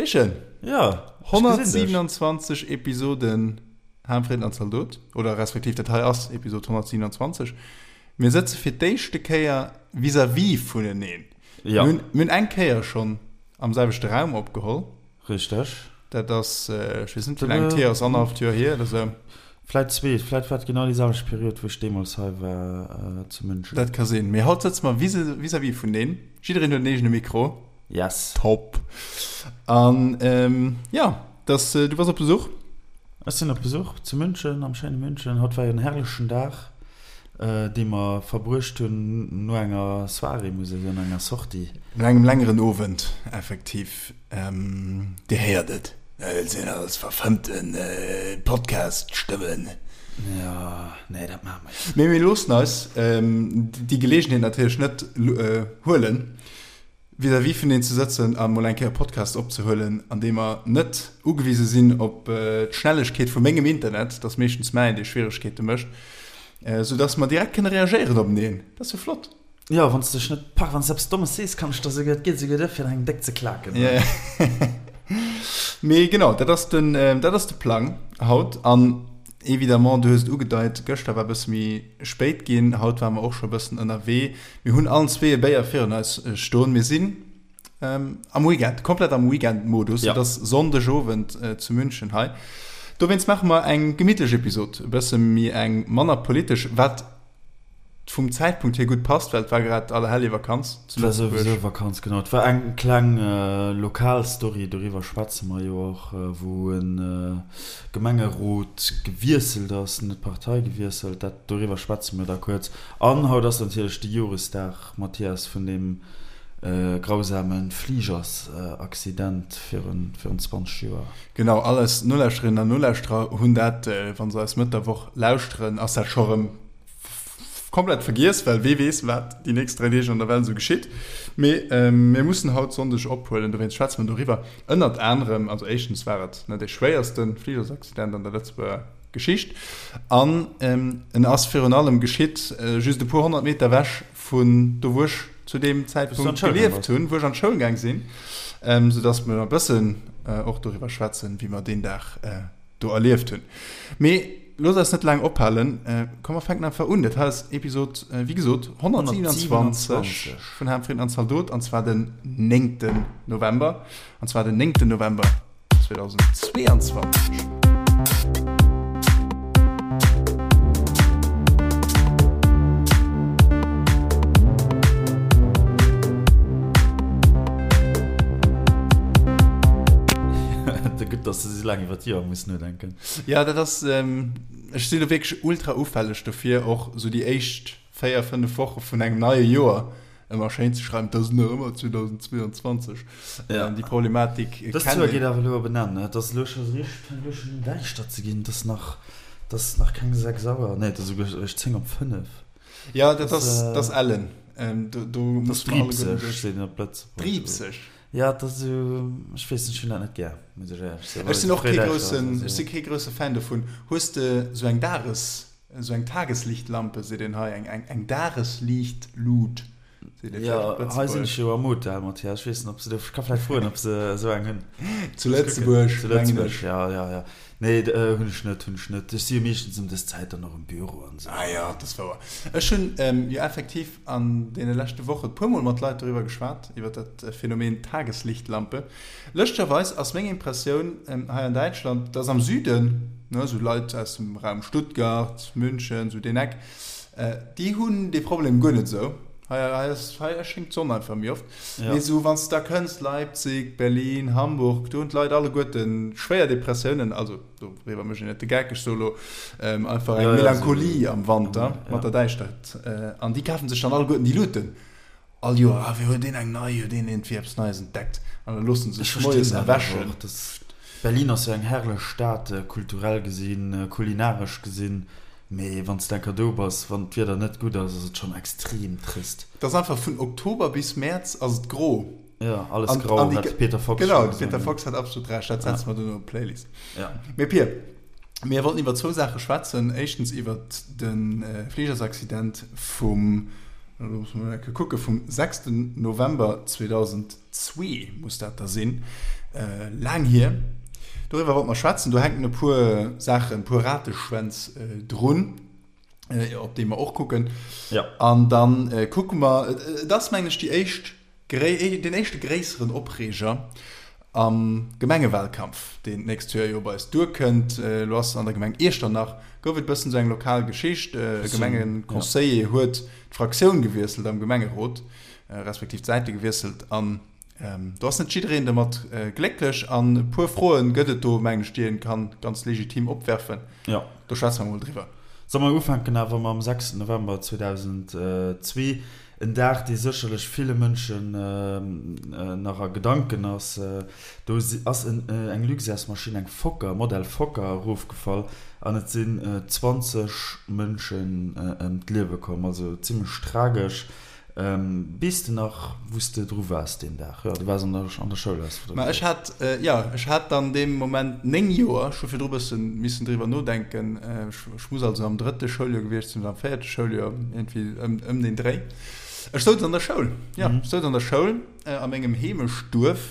Pischen! Ja, 127 Episoden Ham, Fritten an Zaldot, oder respektiv dat hei ass Episod 127. Mir sëtze fir d'éischte Kéier vis-à-vis vuneneen. Ja. Mir hunn eng Kéier schonn am selwechte Raum opgeholl. Richteg. Dat ass, ech weess net, wéi laang et hier ass, annerhalleft Joer hier oder sou. Vläit zwee, vläit war et genau déi selwecht Period, wou ech deemools hei war zu München. Dat ka sinn. Mee haut sëtze mer vis-à-vis vuneneen. Jiddereen huet en eegene Mikro. Yes. Top. An jo, dass, du bass op Besuch? Ech sinn op Besuch zu München, am schéine München. Haut war jo en herrlechen Dag, dee mer verbruecht hunn no enger Soirée, muss ech soen, no enger Sortie. No engem längeren Owend, effektiv. Dir héiert et, et sinn alles verfëmmte Podcast-Stëmmen. Jo, nee, dat maache mer jo net. Mee mir loossen eis déi Geleegenheet natierlech net huelen, vis-à-vis vun een ze sëtzen a mol eng Kéier e Podcast opzehuelen, an deem mer net ugewise sinn op d'Schnellegkeet vu mengem Internet, dat ass meeschtens mäin, dee Schwieregkeete mécht, soudass mer direkt kënne reagéieren openeen. Dat ass jo flott. Jo, wann s de dech net pak, wann s de eppes Dommes sees, kann ech der souguer, et geet souguer duer, fir der eng déck ze klaken. Mee genau, dat ass den, dat ass de Plang haut. An évidemment, du hues et ugedeit, gëschter war e bësse méi spéit ginn, haut ware mer och scho e bëssen ënnerwee. Mir hunn allen zwee e Béier virun eis stoen. Mir sinn am Weekend, komplett am Weekend-Modus. Et ass Sonndegowend zu München hei. Dowéinst maache mer eng gemittlech Episod, e bësse méi eng manner politesch, wat vum Zäitpunkt hier gutt passt, well et war grad Allerheljevakanz zu Lëtzebuerg. Et war souwisou Vakanz, genau. Et war eng kleng lokal Story, doriwwer schwätze mer jo och, wou e Gemengerot gewiesselt ass, net d'Partei gewiesselt, dat doriwwer schwätze mer da kuerz. An haut ass natierlech de Joresdag, Mathias, vun deem grausame Fligersaccident virun 20 Joer. Genau, all eis Nolauschterinnen an Nolauschterer hunn dat, wa se eis Mëtt der Woch lauschteren, ass dat scho rëm komplett vergiess, well wee weess, wat déi nächst 3 Deeg an der Welt esou geschitt. Mee mir mussen haut Sonndeg ophuelen, dowéinst schwätze mer doriwwer. Ënnert anerem, also éischtens war et net dee schwéierste Fligersaccident an der Lëtzebuerger Geschicht an en ass virun allem geschitt just e puer 100 Meter ewech vun do, wou ech zu deem Zäitpunkt gelieft hunn, wou ech an d'Schoul gaang sinn, soudass mer e bëssen och doriwwer schwätzen, wéi mer deen Dag do erlieft hunn. Mee looss eis net laang ophalen, komm mer fänken einfach un. Dat hei ass Episod, wéi gesot, 127 vun Ham, Fritten an Zaldot, an zwar den 9. November, an zwar den 9. November 2022. Gutt, dass de sou laang iwwer d'Joer muss nodenken. Ja, dat ass, ech sinn do wierklech ultra ufälleg dofir, och sou déi éischt 4, 5 Woche vun engem neie Joer ëmmer schéin ze schreiwen, et ass nach ëmmer 2022. Ja. Déi Problematik kennt een. Dëst Joer geet awer elo op en Enn, et ass elo scho richteg, fänkt elo schonn un däischter ze ginn, et ass nach, et ass nach keng 6 Auer, nee, et ass esouguer eréischt 10 op 5. Ja, dat ass, dat ass ellen. Do, do muss mer alleguerten duerch. Driibseg, seet een op Lëtzebuergesch. Driibseg? Ja, et ass esou, ech weess net, ech hunn dat net gär, muss ech éierlech soen. Ech sinn och kee groussen, ech si kee grousse Fan dovun. Hues de esou eng Dages, esou eng Tageslichtlampe, seet een hei, eng, eng, eng Dagesliichtlut, seet ee vläicht op Jo, hei sinn ech jo am Hotel, Mathias, ech weess net, ob se do, ech ka vläicht froen, ob se esou eng hunn. Zu Lëtzebuerg, Zu Lëtzebuerg, ja, ja, ja. Nee, hunn ech net, hunn ech net. Ech si jo meeschtens ëm dës Zäit dann och am Büro an esou. Ah jo, dat ass wouer. Ech hunn jo effektiv an deene leschte Woche puer Mol mat Leit doriwwer geschwat, iwwer dat Phänomen Tageslichtlampe. Lëschterweis ass meng Impressioun hei an Däitschland, dass am Süden, ne, esou Leit aus dem Raum Stuttgart, München, esou deen Eck, déi hunn dee Problem guer net esou. Hei, hei ass, hei schéngt d'Sonn einfach méi oft. Mee esou wann s de da kënns, Leipzig, Berlin, Hamburg, do hunn d'Leit alleguerte schwéier Depressiounen, also doriwwer mécht een net de Geck, ech soe lo einfach eng Melancholie am Wanter mat der Däischtert. An déi kafe sech dann alleguerten déi Luuten all Joer. Ah, wéi huet deen eng nei, huet deen iergendwéi eppes Neies entdeckt? An da loosse se sech moies erwächen. Berlin ass jo eng herrlech Stad, kulturell gesinn, kulinaresch gesinn. Mee wann s de enker do bass, wann d'Wieder net gutt ass, ass et schonn extrem trist. Et ass einfach vun Oktober bis Mäerz ass et gro. Jo, alles grau, hat de Peter Fox schonn gesot. Genau, de Peter Fox hat absolut Recht, dat setze mer duerno op d'Playlist. Mee Pir, mir wollten iwwer zwou Saache schwätzen. Éischtens iwwer de Fligersaccident vum, elo muss mer mol eng Kéier kucken, vum 6 November 2002 muss dat da sinn. Laang hier. Doriwwer wollte mer schwätzen. Do hänken e puer Saachen, e puer Rateschwänz drun, op déi mer och kucken. Ja. An dann kucke mer, et ass mengen ech déi éischt, deen éischte gréisseren Opreeger am Gemengewahlkampf, deen d'nächst Joer jo bei eis duerkënnt. Elo ass an der Gemeng Iechternach, gouf et e bëssen esou eng lokal Geschicht. E Gemengeconseiller huet d'Fraktioun gewiesselt am Gemengerot, respektiv d'Säite gewiesselt an Do ass net jiddereen domat glécklech an e puer Froen gëtt et do, mengen ech, déi een kann ganz legitim opwerfen. Jo. Do schwätze mer mol driwwer. Solle mer ufänken awer mam 6 November 2002, en Dag, dee sécherlech ville Mënschen nach a Gedanken ass. Do ass eng Luxairsmaschinn, eng Fokker, Modell Fokker, erofgefall an et sinn 20 Mënschen ëm d'Liewe komm. Also zimmlech tragesch. Weess de nach, wou s de dru waars deen Dag? Jo, du waars an der, an der Schoul, has de Ma ech hat, jo, ech hat dann dee Moment 9 Joer. Ech hu virdru bësse missen driwwer nodenken. Ech muss also am drëtte Schouljoer gewiescht sinn oder am véierte Schouljoer, iergendwéi ëm, ëm deen Dréi. Ech souz an der Schoul, jo, ech souz an der Schoul a mengem Heemechtduerf.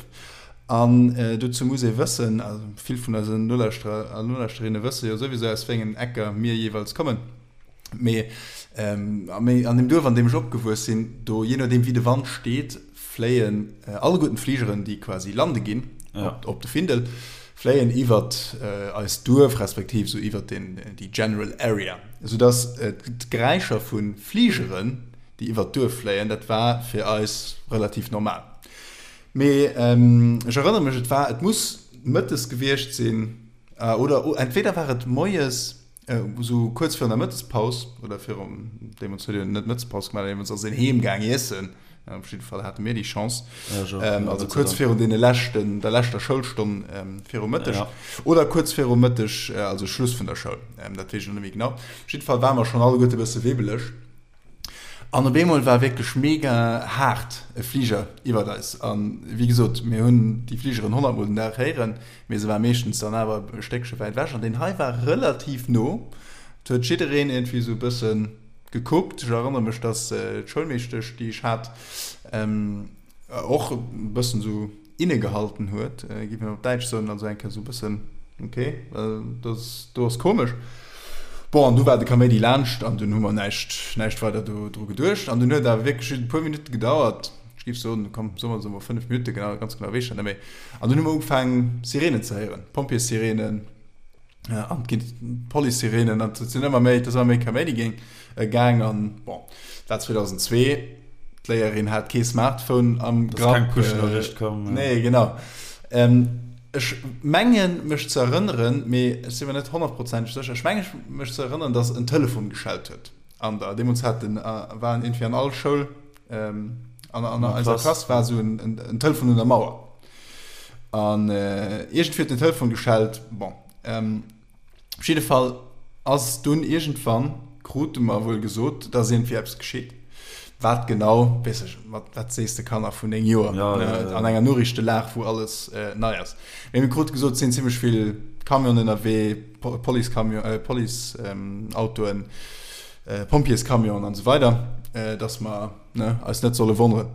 An dozou muss ee wëssen, also vill vun eisen Nolauschterer a Nolauschterinnen wësse jo souwisou, aus wéi engen Ecker mir jeeweils kommen. Mee an deem Duerf, an deem ech opgewuess sinn, do, jee nodeem wéi de Wand steet, fléien alleguerten d'Fligeren, déi quasi lande ginn op de Findel, fléien iwwert eist Duerf, respektiv esou iwwert déi general area, soudass d'Geräischer vu Fligeren, déi iwwert d'Duerf fléien, dat war fir eis relativ normal. Mee ech erënnere mech, et war, et muss mëttes gewiescht sinn, oder entweder war et moies, Esou kuerz virun der Mëttespaus, oder virum, deemools huet een net Mëttespaus gemaach, deemools ass een heem gaang iessen, op jidde Fall hate mir déi Chance, also kuerz virun deene leschten, der leschter Schoulstonn viru Mëtteg, oder kuerz viru Mëtteg, also Schluss vun der Schoul, dat weess ech elo net méi genau. Op jidde Fall ware mer schonn alleguerte e bësse wibbeleg. An op eemol war wierklech mega haart e Fliger iwwert eis. An wéi gesot, mir hunn déi Fligeren honnertmol den Dag héieren, mee se war meeschtens dann awer e Stéckche wäit ewech. An deen hei war relativ no. Et huet jiddereen iergendwéi esou e bësse gekuckt. Ech erënnere mech, dass d'Schoulmeeschtesch, déi ech hat, och e bëssen esou innegehalten huet, géif een op Däitsch soen, also eng Kéier esou e bëssen, ok, dat do ass komesch. Bon, an du war de Kaméidi laanscht an dunn hu mer näischt, näischt weider do dru geduecht. An dunn huet awer wierklech just e puer Minutte gedauert, ech géif soen, komm, soe mer, soe mer 5 Minutte, genau, ganz genau weess ech dat net méi. An dunn hu mer ugefaangen, Sireenen ze héieren, Pompjeessirenen. An et ginn d'Police-Sirenen an et sinn ëmmer méi, et ass ëmmer méi Kaméidi géing gaang an bon, dat war 2002, d'Léierin hat kee Smartphone am Grapp. Ass keng Push-Noriicht komm. Nee, genau. Ech mengen mech ze erënneren, mee ech si mer net honnertprozenteg sécher, ech menge mech ze erënneren, datt en Telefon geschellt huet an der, deemools hat den, waren iergendwéi an all Schoul, an an eiser Klass war esou en Telefon un der Mauer. An iergendwéi huet den Telefon geschellt. Bon, op jidde Fall ass dunn iergendwann, krute mer wuel gesot, dass iergendwéi eppes geschitt. Wat genau, weess ech, wat, wat sees de Kanner vun 9 Joer an enger Noriichtelag, wou alles nei ass. Mee mir krute gesot, et sinn zimmlech vill Camionen ënnerwee, Policecamion, Policeautoen, Pompjeescamionen an esou weider, dass mer, ne, eis net solle wonneren.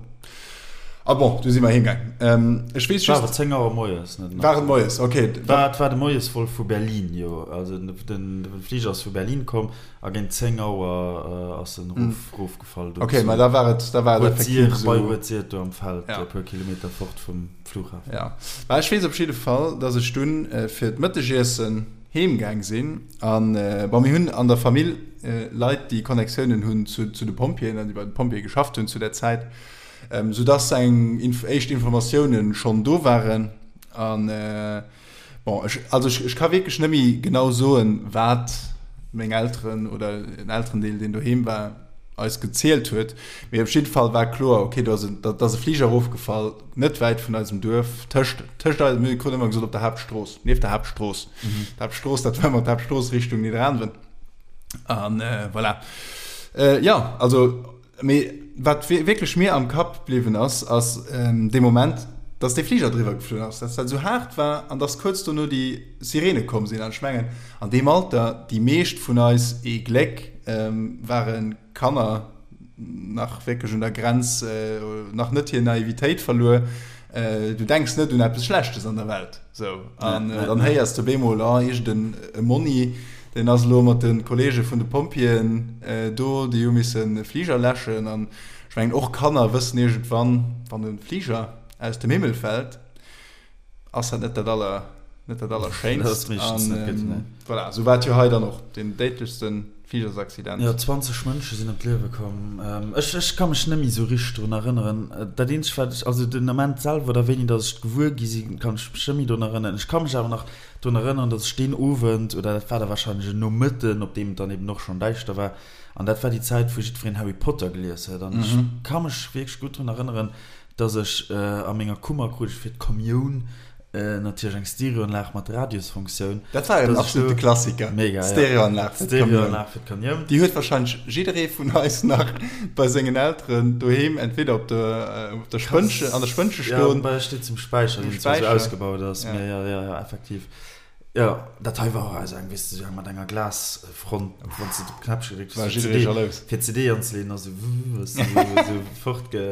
A bon, du si mer heemgaang. Ähm, ech weess just. War et 10 Auer moies, net? War et moies, okay. War, et war de Moiesvol vu Berlin, jo. Also den, den, de Fliger ass vu Berlin komm a géint 10 Auer ass en erof, erofgefall do. Okay, ma da war et, da war et effektiv esou. Bei Rued-Sir, do am Feld, e puer Kilometer fort vum Flughafen. Ja. Ma ech weess op jidde Fall, dass ech dunn fir d'Mëttegiessen heemgaang sinn an, bon, mir hunn an der Famill Leit, déi Connectiounen hunn zu, zu de Pompjeeën an déi bei de Pompjeeë geschafft hunn zu där Zäit. Soudass eng éischt Informatiounen schonn do waren. An bon, ech, also ech, ech ka wierklech net méi genau soen, wat meng Elteren oder en Elterendeel, deen doheem war, eis gezielt huet. Mee op jidde Fall war kloer, okay, do ass en, da ass e Fliger erofgefall, net wäit vun eisem Duerf, tëscht, tëscht eisem, mir kruten ëmmer gesot, op der Haaptstrooss, nieft der Haaptstrooss. D'Haaptstrooss, dat war ëmmer d'Haaptstrooss Richtung Nidderaanwen. An voilà. Jo, also Mee wat wierklech mir am Kapp bliwwen ass, ass dee Moment, dass dee Fliger driwwer geflunn ass, dass dat esou haart war an dass kuerz dono déi Sirene komm sinn. An ech mengen, an deem Alter, déi meescht vun eis, ee Gléck, ware Kanner, nach wierklech un der Grenz, nach net hir Naivitéit verluer. Du denks net un eppes Schlechtes an der Welt. Sou. An dann héiers de op eemol, oh, iergend en e Monni, deen ass elo mat de Kolleege vun de Pompjeeën do, déi hu missen e Fliger läschen. An ech mengen, och Kanner wëssen iergendwann, wann e Fliger aus dem Himmel fält, ass dat net dat aller, net dat Allerschéinst. Dat ass meeschtens net gutt, nee. Voilà, sou war et jo hei dann och, deen déidlechste Fligersaccident. Jo, 20 Mënsche sinn ëm d'Liewe komm. Ech, ech ka mech net méi sou richteg drun erënneren. Dat eenzegt, wat ech, also den Ament selwer oder wéini datt ech et gewuer gi sinn, kann ech mech net méi drun erënneren. Ech ka mech awer nach drun erënneren, datt ech deen Owend, oder dat war da warscheinlech en Nomëtten, op deem et dann eben och schonn däischter war, an dat war déi Zäit, wou jiddwereen Harry Potter gelies huet, an ech ka mech wierklech gutt drun erënneren, dass ech a menger Kummer krut ech fir d'Kommioun natierlech eng Stereoanlag mat Radiosfunktioun. Dat war en absolute Klassiker. Mega, ja. Stereoanlag fir d'Kommioun. Stereoanlag fir d'Kommioun. Déi huet wahrscheinlech jidderee vun eis nach bei sengen Elteren doheem entweder op der, op der Spënnche, an der Spënnche stoen. Ja, bei eis steet se um Späicher, deen zwar esou ausgebaut ass, mee jo, jo, jo, effektiv. Jo, dat hei war och esou eng, weess de, esou eng mat enger Glasfront, wann s de op d'Knäppche gedréckt hues, War jidderee jalous. fir d'CD anzeleeën, ass esou wuh, ass esou fortge.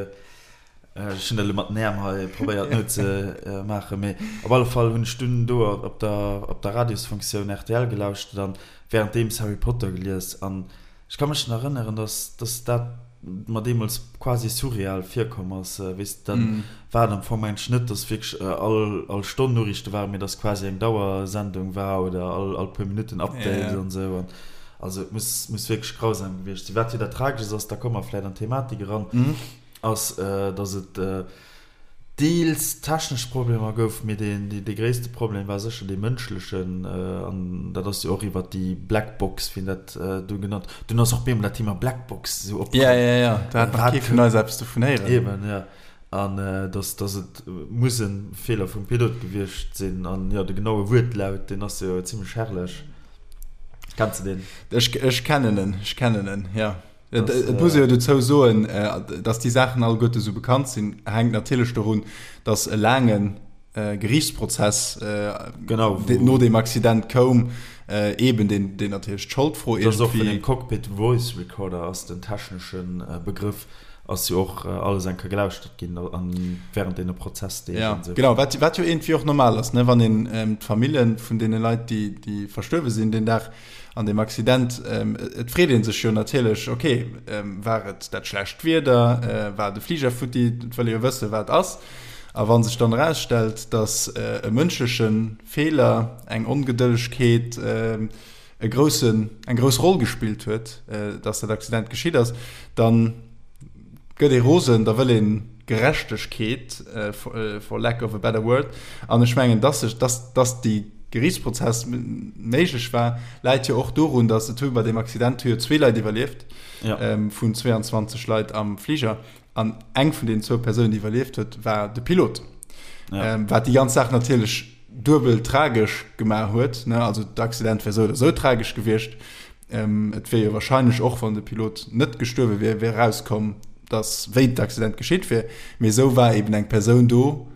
Ech hunn dat elo mat den Äerm hei probéiert nozemaachen, mee op alle Fall hunn ech dunn do op der op der Radiosfunktioun rtl gelauschtert an wärenddeems Harry Potter gelies an ech ka mech nach erënneren, dass dass dat mer deemools quasi surreal virkomm ass, weess de, dann war et am Fong mengen ech net, dass wierklech all all Stonn Noriichte waren, mee dass quasi eng Dauersendung war oder all all puer Minutten Update an esou an also et muss muss wierklech grausam gewiescht sinn. Wat jo dat Trageschst ass, da komme mer vläit an d'Thematik eran, ass, dass et deels technesch Problemer gouf, mee dee gréisste Problem war sécher dee mënschlechen. An dat ass jo och iwwert déi Black Box, wéi een dat du genannt huet. Dunn ass och bemol dat Thema Black Box esou opkomm. Ja, ja, ja, do hat nach kee vun eis eppes dovun héieren. Eben, ja. An dass, dass et muss e Feeler vum Pilot gewiescht sinn. An jo, de genaue Wuertlaut, deen ass jo zimlech herrlech. Kenns de deen? Ech, ech kennen en, ech kennen en, ja. Et muss ee jo dozou soen, datt déi Saachen alleguerte sou bekannt sinn, hänkt natierlech dorun, datt e laange Geriichtsprozess no deem Accident koum, eeben deen natierlech d'Scholdfro iergendwéi. Dass och vun dem Cockpit Voice Recorder ass den technesche Begrëff, ass jo och alles eng Kéier gelauschtert ginn wärend deene Prozessdeeg an esou. Genau, wat jo iergendwéi och normal ass, wann een d'Famille vun deene Leit, déi verstuerwe sinn deen Dag, An deem Accident, et freet ee sech jo natierlech, ok, war et dat schlecht Wieder, war de Fliger futti, et wëll ee jo wëssen, wat ass. A wa sech dann erausstellt, datt e mënschleche Feeler, eng Ongedëllegkeet e groussen, eng grouss Roll gespillt huet, datt dat Accident geschitt ass, dann gëtt ee rosen, da wëll ee Gerechtegkeet, for lack of a better word. An ech mengen, dass sech, dass, dass déi Geriichtsprozess méiglech war, läit jo och dorun, dass et hu bei deem Accident hu jo zwee Leit iwwerlieft vun 22 Leit am Fliger. An eng vun deenen zwou Persounen, déi iwwerlieft huet, war de Pilot. Wat déi ganz Saach natierlech duebel tragesch gemaach huet. Also d'Accident wär esou oder esou tragesch gewiescht. Et wier jo wahrscheinlech och, wann de Pilot net gestuerwe wier, wier erauskomm, datt wéi d'Accident geschitt wier. Mee esou war eben eng Persoun do,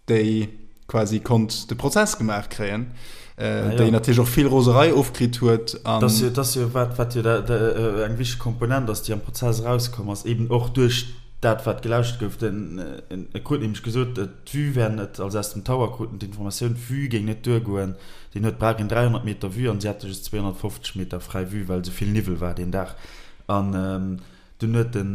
déi quasi konnt de Prozess gemaach kréien, déi natierlech och vill Roserei ofkritt huet. An dat ass jo wat, wat jo eng wichteg Komponent ass, déi am Prozess erauskomm ass, eben och duerch dat, wat gelauschtert gouf. Den, e krut nämlech gesot, d'Vue wär net, also aus dem Tower kruten d'Informatioun, d'Vue géing net duergoen. Deen huet brauch een 300 Meter Vue an si hate just 250 Meter fräi Vue, well esou vill Niwwel war deen Dag. An dunn huet de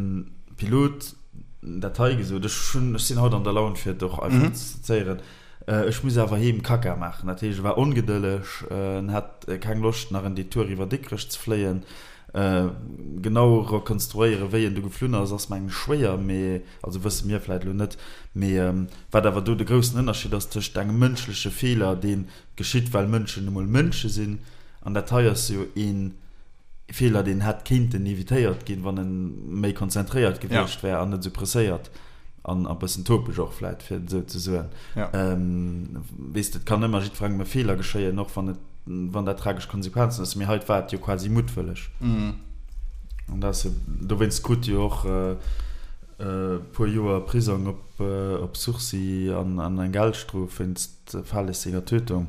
Pilot dat hei gesot, ech hunn, ech sinn haut an der Laun fir et och einfach ze zéieren, Ech muss awer heem Kacka maachen. Dat heescht, e war ongedëlleg, en hat keng Loscht nach en Detour iwwer Dikrech ze fléien. Genau rekonstruéieren, wéi en du geflunn ass, ass mengen ech schwéier, mee, also wësse mir vläit elo net, mee Wat awer do de groussen Ënnerscheed ass tëscht engem mënschleche Feeler, dee geschitt, well Mënschen nu mol Mënsche sinn, an dat hei ass jo ee Feeler, deen hätt kéinten evitéiert ginn, wann e méi konzentréiert gewiescht wär an net esou presséiert an e bëssen topeg och vläit, fir et esou ze soen. Weess de, et kann ëmmer jiddwerengem e Feeler geschéien, och wann et, wann dat tragesch Konsequenzen huet. Mee hei war et jo quasi muttwëlleg. An dat ass jo, dowéinst krut jo och E puer Joer Prisong op Sursis an eng Geldstrof wéinst fahrlässiger Tötung.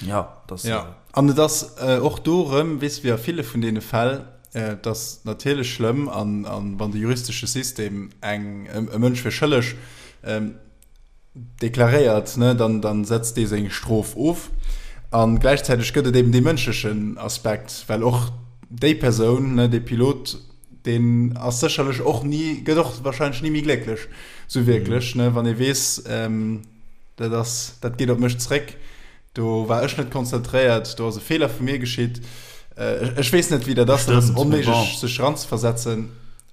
Jo, dat ass. Jo, an et ass och do erëm, weess de, wéi a ville vun deene Fäll, et ass natierlech schlëmm, an wann de juristesche System eng e Mënsch fir schëlleg. Deklaréiert, ne, dann, dann setzt dee seng Strof of. A gläichzäiteg gëtt et eben dee mënschlechen Aspekt, well och déi Persoun, ne, dee Pilot, deen ass sécherlech och ni, gëtt och wahrscheinlech ni méi glécklech, sou wierklech, ne, wann ee weess, dat ass, dat geet op mech zréck, do war ech net konzentréiert, do ass e Feeler vu mir geschitt. Ech weess net, wéi dat ass, dat ass onméiglech sech eranzeversetzen.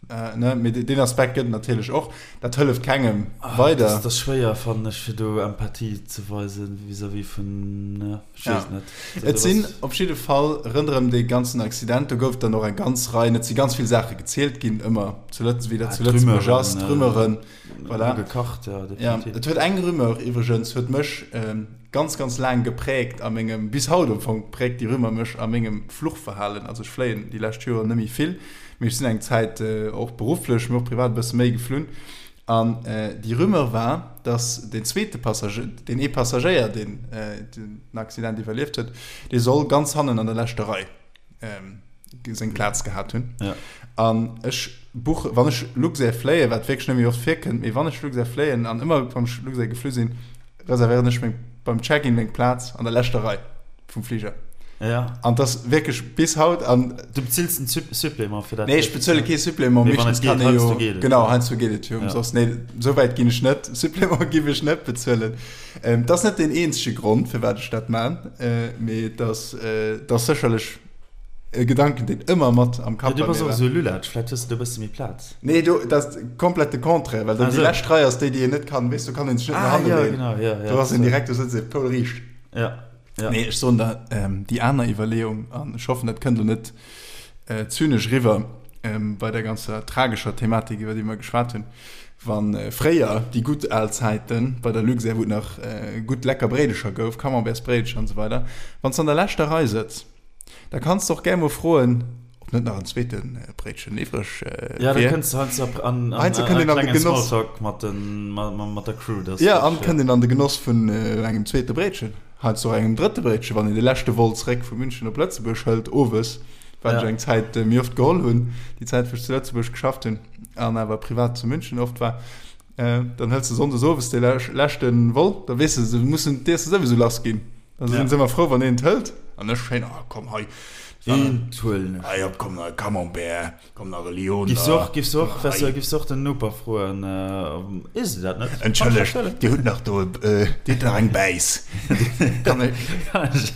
Äh, ne, mee deen Aspekt gëtt et natierlech och. Dat hëlleft kengem ah, weider. Dat ass schwéier, fannen ech, fir do Empathie ze weisen vis-à-vis vun, ne, ech weess ja. net. Et sinn op jidde Fall rënderëm dee ganzen Accident, do gouf dann och eng ganz Rei, et si ganz vill Saache gezielt ginn, ëmmer zu Lëtz, wéi dat ah, zu Lëtzebuerg ass, d'Rumeuren. Voilà. Gekacht, ja, definitiv. Ja, et huet eng Rumeur iwwregens, huet mech ähm, ganz, ganz laang gepräägt a mengem, bis haut am Fong präägt déi Rumeur mech a mengem Fluchverhalen. Also ech fléien déi lescht Joren net méi vill, mee ech sinn eng Zäit och berufflech, mee och privat e bësse méi geflunn. An déi Rumeur war, dass deen zweete Passagéier, deen ee Passagéier, deen den Accident iwwerlieft huet, dee soll ganz hannen an der leschter Rei seng Plaz gehat hunn. Ja. An ech buche, wann ech Luxair fléien, wat wierklech net méi oft virkënnt, mee wann ech Luxair fléien an ëmmer wann ech Luxair geflu sinn, reservéieren ech meng beim Check-in meng Plaz an der leschter Rei vum Fliger. Ja. An das wierklech bis haut an. Du bezills en Supplément fir dat? Nee, ech bezuele kee Supplément, Mee wann et geet, heiansdo geet et. Genau, heiansdo geet et jo ëmsoss. Nee, esou wäit ginn ech net. Supplément giff ech net bezuelen. Ähm, dat ass net deen eenzege Grond, firwat ech dat man, äh, mee et ass, äh, et ass sécherlech e Gedanken, deen ëmmer mat am Kapp bei mir war. Du bass och esou Lulatsch, vläicht hues de do e bësse méi Plaz. Nee, do, dat ass komplett de Contraire, well dann déi lescht Rei ass déi, déi een net kann, weess, do kann een sech net no hanne leeën. Ah, jo, genau, jo, jo. Do ass een direkt, do sëtzt ee poulriicht. Ja, ja. Nee, ech soen der, ähm, déi aner Iwwerleeung, an ech hoffen, dat kënnt elo net zynesch eriwwer bei der ganzer tragescher Thematik, iwwer déi mer geschwat hunn, Wa fréier, déi gutt al Zäiten, bei der Luxair, wou et nach gutt lecker Bréidecher gouf, Camembertsbréidecher an esou weider, wann s de an der leschter Rei sëtz, da kanns de och gär mol froen, ob net nach en zweete Bréitchen iwwreg wier. Ja, da kënns de heiansdo an e klengen Smalltalk mat der Crew. Jo, an kënnt een an de Genoss vun engem zweete Bréitchen. Heiansdo och engem drëtte Bréitchen, wann een de leschte Vol zeréck vu München op Lëtzebuerg hëlt, owes, wat ech eng Zäit méi oft geholl hunn, déi Zäit wou ech zu Lëtzebuerg geschafft hunn an awer privat zu München oft war, dann hëls de sonndes owes dee leschte Vol, da weess de, se mussen, dierfs de souwisou lass ginn, da sinn se ëmmer frou, wann een et hëlt an ech schéin, ah komm hei, Eent huelen ech. Hei op, komm nach e Camembert. Komm nach e Lyoner. Giffs och, giffs och, wärst du, giffs och den Noper froen, Is de dat net? Entschëllegt, Dir hutt nach do, Dir hutt nach eng Bäiss. Kann ech,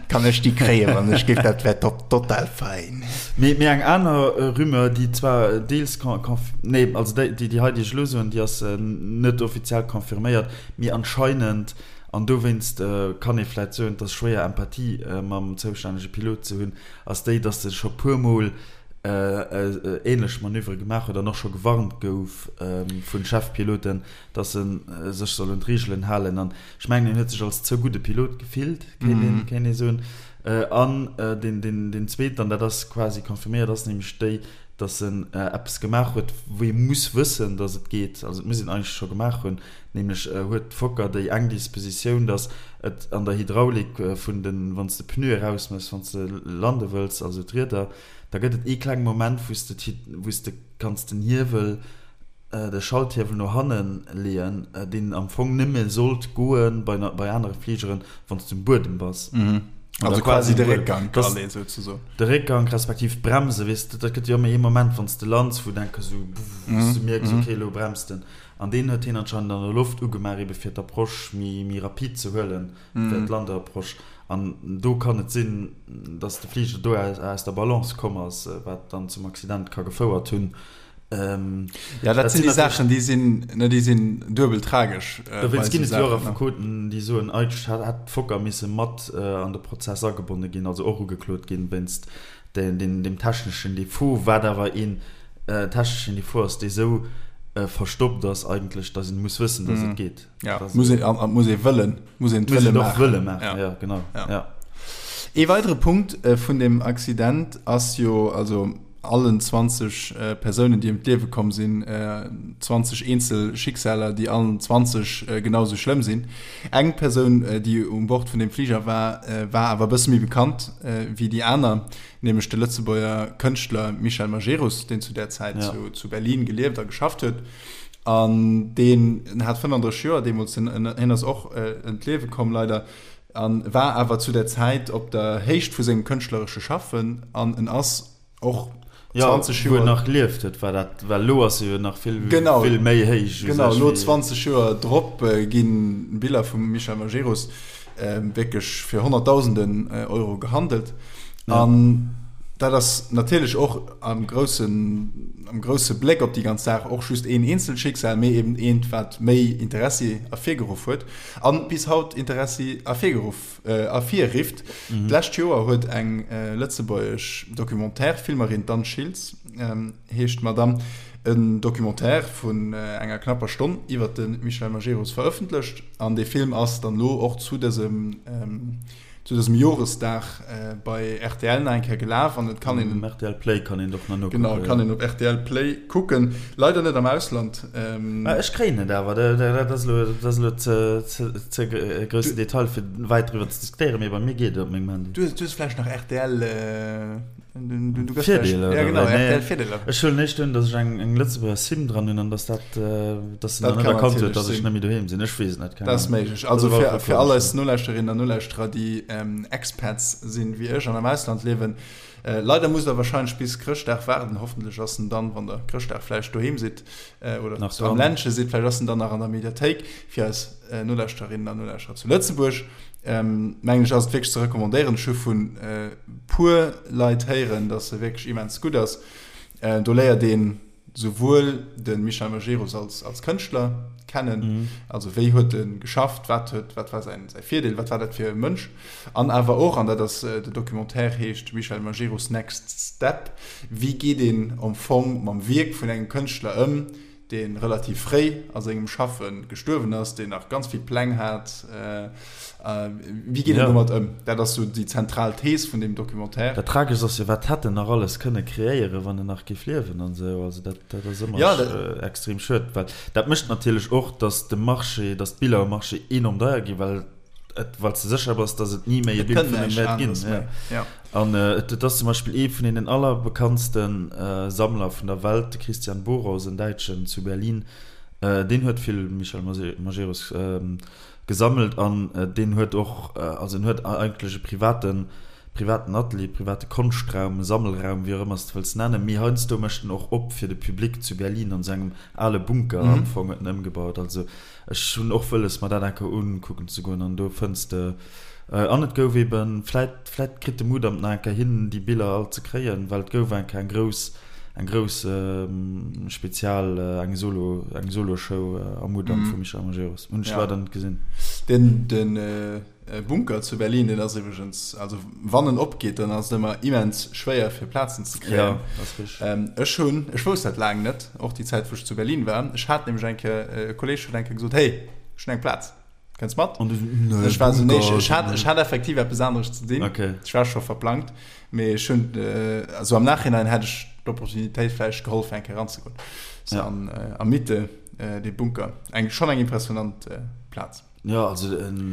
kann ech déi kréien, wann ech géif? Dat wär total fein. Mee, mee eng aner Rumeur, déi zwar deels conf, nee, also déi, déi hei, déi ech elo soen, déi ass net offiziell confirméiert, mee anscheinend, an dowéinst kann ee vläit soen, et ass schwéier Empathie mam zoustännege Pilot ze hunn, ass déi, dass e scho puermol änlech Manövere gemaach huet an och scho gewarnt gouf vu Chefpiloten, dass e sech soll un d'Reegelen halen. An ech mengen, en huet sech als ze gudde Pilot gefillt, kéint ee soen. An deen zweeten, an dat ass quasi confirméiert, ass nämlech déi, dass en eppes gemaach huet, wou ee muss wëssen, dass et geet. Also et muss een eigentlech scho gemaach hunn. Nämlech huet d'Fokker déi eng Dispositioun, dass et an der Hydraulik vun den, wann s de Pneue erausmëss, wann s de lande wëlls, also d'Rieder, da gëtt et ee klenge Moment, wou s de, wou s de kanns den Hiewel, de Schalthiewel no hanne leeën, deen am Fong nëmme sollt goe bei, bei anere Fligeren, wann s de um Buedem bass. Also quasi de Réckgank alee souzesoen. De Réckgank respektiv d'Bremse, weess de, dat gëtt jo ëmmer ee Moment, wann s de lands, wou du enke sou, wou s de mierks, okay, elo bremst en. An deen huet hien anscheinend an der Loft ugemaach, ebe fir d'Approche méi, méi rapid ze huelen, fir d'Landeapproche. An do kann et sinn, datt de Fliger do aus der Balance komm ass, wat dann zum Accident ka gefouert hunn. Ja, dat sinn déi Saachen, déi sinn, ne, déi sinn duebel tragesch. Dowéinst ginn et jo och Affekoten, déi soen, eigentlech hätt d'Fokker misse mat an de Prozess agebonne ginn, also och ugeklot ginn, wéinst deem techneschen Defaut, wat awer een techneschen Defaut ass, dee sou verstoppt ass eigentlech, datt een muss wëssen, datt et geet. Ja, muss een, an et muss ee wëllen, muss een et wëlle maachen. Wëlle maachen, ja, genau. Ja. Ee weidere Punkt vun deem Accident ass jo, also allen 20 Persounen, déi ëm d'Liewe komm sinn, 20 eenzel Schicksaler, déi allen 20 genau sou schlëmm sinn. Eng Persoun, déi um Bord vun deem Fliger war, war awer e bësse méi bekannt wéi déi aner, nämlech de Lëtzebuerger Kënschtler Michel Majerus, deen zu där Zäit zu Berlin gelieft a geschafft huet. An deen hat 35 Joer deemools, hien ass och ëm d'Liewe komm leider, a war awer zu der Zäit op der Héicht vu sengem kënschtleresche Schaffen an en ass och 20 Joer. Jo, wou en nach gelieft huet, war dat, well elo ass e jo nach vill, vill méi héich. Genau, elo 20 Joer drop gi Biller vum Michel Majerus wierklech fir Honnertdausenden Euro gehandelt. An dat ass natierlech och am groussen, am grousse Bléck op déi ganz Saach och just een eenzelt Schicksal, mee eben eent, wat méi Interessi ervirgeruff huet a bis haut Interessi ervirgeruff, ervirrifft. D'lescht Joer huet eng lëtzebuergesch Documentaire-Filmerin, d'Anne Schiltz heescht d'Madame, en Documentaire vun enger knapper Stonn iwwer de Michel Majerus verëffentlecht an dee Film ass dann elo och zu dësem, zu dësem Joresdag bei rtl nach eng Kéier gelaf an et kann een Um rtl Play kann een och nach nokucken. Genau, kann een op rtl Play kucken. Leider net am Ausland. Mä ech kréien et awer. Dat ass elo, dat ass elo ze, ze, ze e groussen Detail fir wäit driwwer ze diskutéieren, mee bei mir geet et op mengem Handy. Du hues vläicht nach rtl. Du, du Virdeeler, ja, genau, nee. Virdeeler. Ech huelen éischt un, datt ech eng, eng Lëtzebuerger SIM dran hunn an datt dat, datt se dann net erkannt huet, datt ech net méi doheem sinn. Ech weess et net, keng Dat ass méiglech. Also fir, fir all eis Nolauschterinnen an Nolauschterer, déi ähm, Expats sinn wéi ech an am Ausland liewen, äh, leider musst der wahrscheinlech bis Chrëschtdag waarden. Hoffentlech ass en dann, wann der Chrëschtdag vläicht doheem sidd äh, oder nach am Ländche sidd, vläicht ass en dann nach an der Mediathéik fir eis äh, Nolauschterinnen an Nolauschterer zu Lëtzebuerg. Ähm, mengen ech ass et wierklech ze recommandéieren. Ech hu vun äh, puer Leit héieren, dass se wierklech immens gutt ass. Äh, do léiert een souwuel de Michel Majerus als, als Kënschtler kennen, mhm. also wéi huet e geschafft, wat huet, wat war säin, säi Virdeel, wat war dat fir e Mënsch, an awer och, an dat ass äh, de Documentaire heescht Michel Majerus Next Step, wéi geet een am Fong mam Wierk vun engem Kënschtler ëm, dee relativ fréi a sengem Schaffe gestuerwen ass, deen nach ganz vill Pläng hat. Wéi geet een domat ëm? Dat ass sou déi zentral Thees vun deem Documentaire. Dat Tragescht ass jo, wat hätt en nach alles kënne kreéieren, wann en nach géif liewen an esou. Also dat, dat ass ëmmer extrem schued, well dat mécht natierlech och, datt de Marché, datt d'Biller um Marché enorm deier ginn, well et, well s de sécher bass, datt et ni méi e Bild vun him wäert ginn. Ja. An et ass zum Beispill ee vun deenen allerbekanntste Sammler vun der Welt, de Christian Boros, en Däitschen zu Berlin, deen huet vill Michel Majerus gesammelt an deen huet och, also en huet eigentlech e privaten, privaten Atelier, private Konschtraum, Sammelraum, wéi och ëmmer s de wëlls nennen, mee heiansdo mécht en och op fir de Public zu Berlin an esou engem ale Bunker am Fong huet en ëmgebaut. Also Ech hunn och wëlles mer dat eng Kéier unkucken ze goen an do fënns de, an et gouf eben, vläit, vläit kritt de Mudam nach eng Kéier hin déi Biller all ze kréien, well et gouf eng Kéier eng grouss, eng grouss Spezial, eng Solo, eng Soloshow am Mudam vum Michel Majerus. Hunn ech leider net gesinn. Den, den Bunker zu Berlin, deen ass iwwregens, also wann en opgeet, dann ass et ëmmer immens schwéier fir Plazen ze kréien. Ja, ass richteg. Ech hunn, ech wousst dat laang net, och déi Zäit wou ech zu Berlin war, ech hat nämlech eng Kéier, e Kolleeg huet eng Kéier gesot, hey, ech hunn eng Plaz, kënns mat? An du sou, nee, Ech war sou, nee, ech hat, ech hat effektiv eppes aneres ze dinn, Okay. ech war scho verplangt, mee ech hunn, also am Nachhinein hätt ech d'Opportunitéit vläicht geholl fir eng Kéier eranzegoen. So an a Mitte, dee Bunker, eng, schonn eng impressionant Plaz. Jo, also et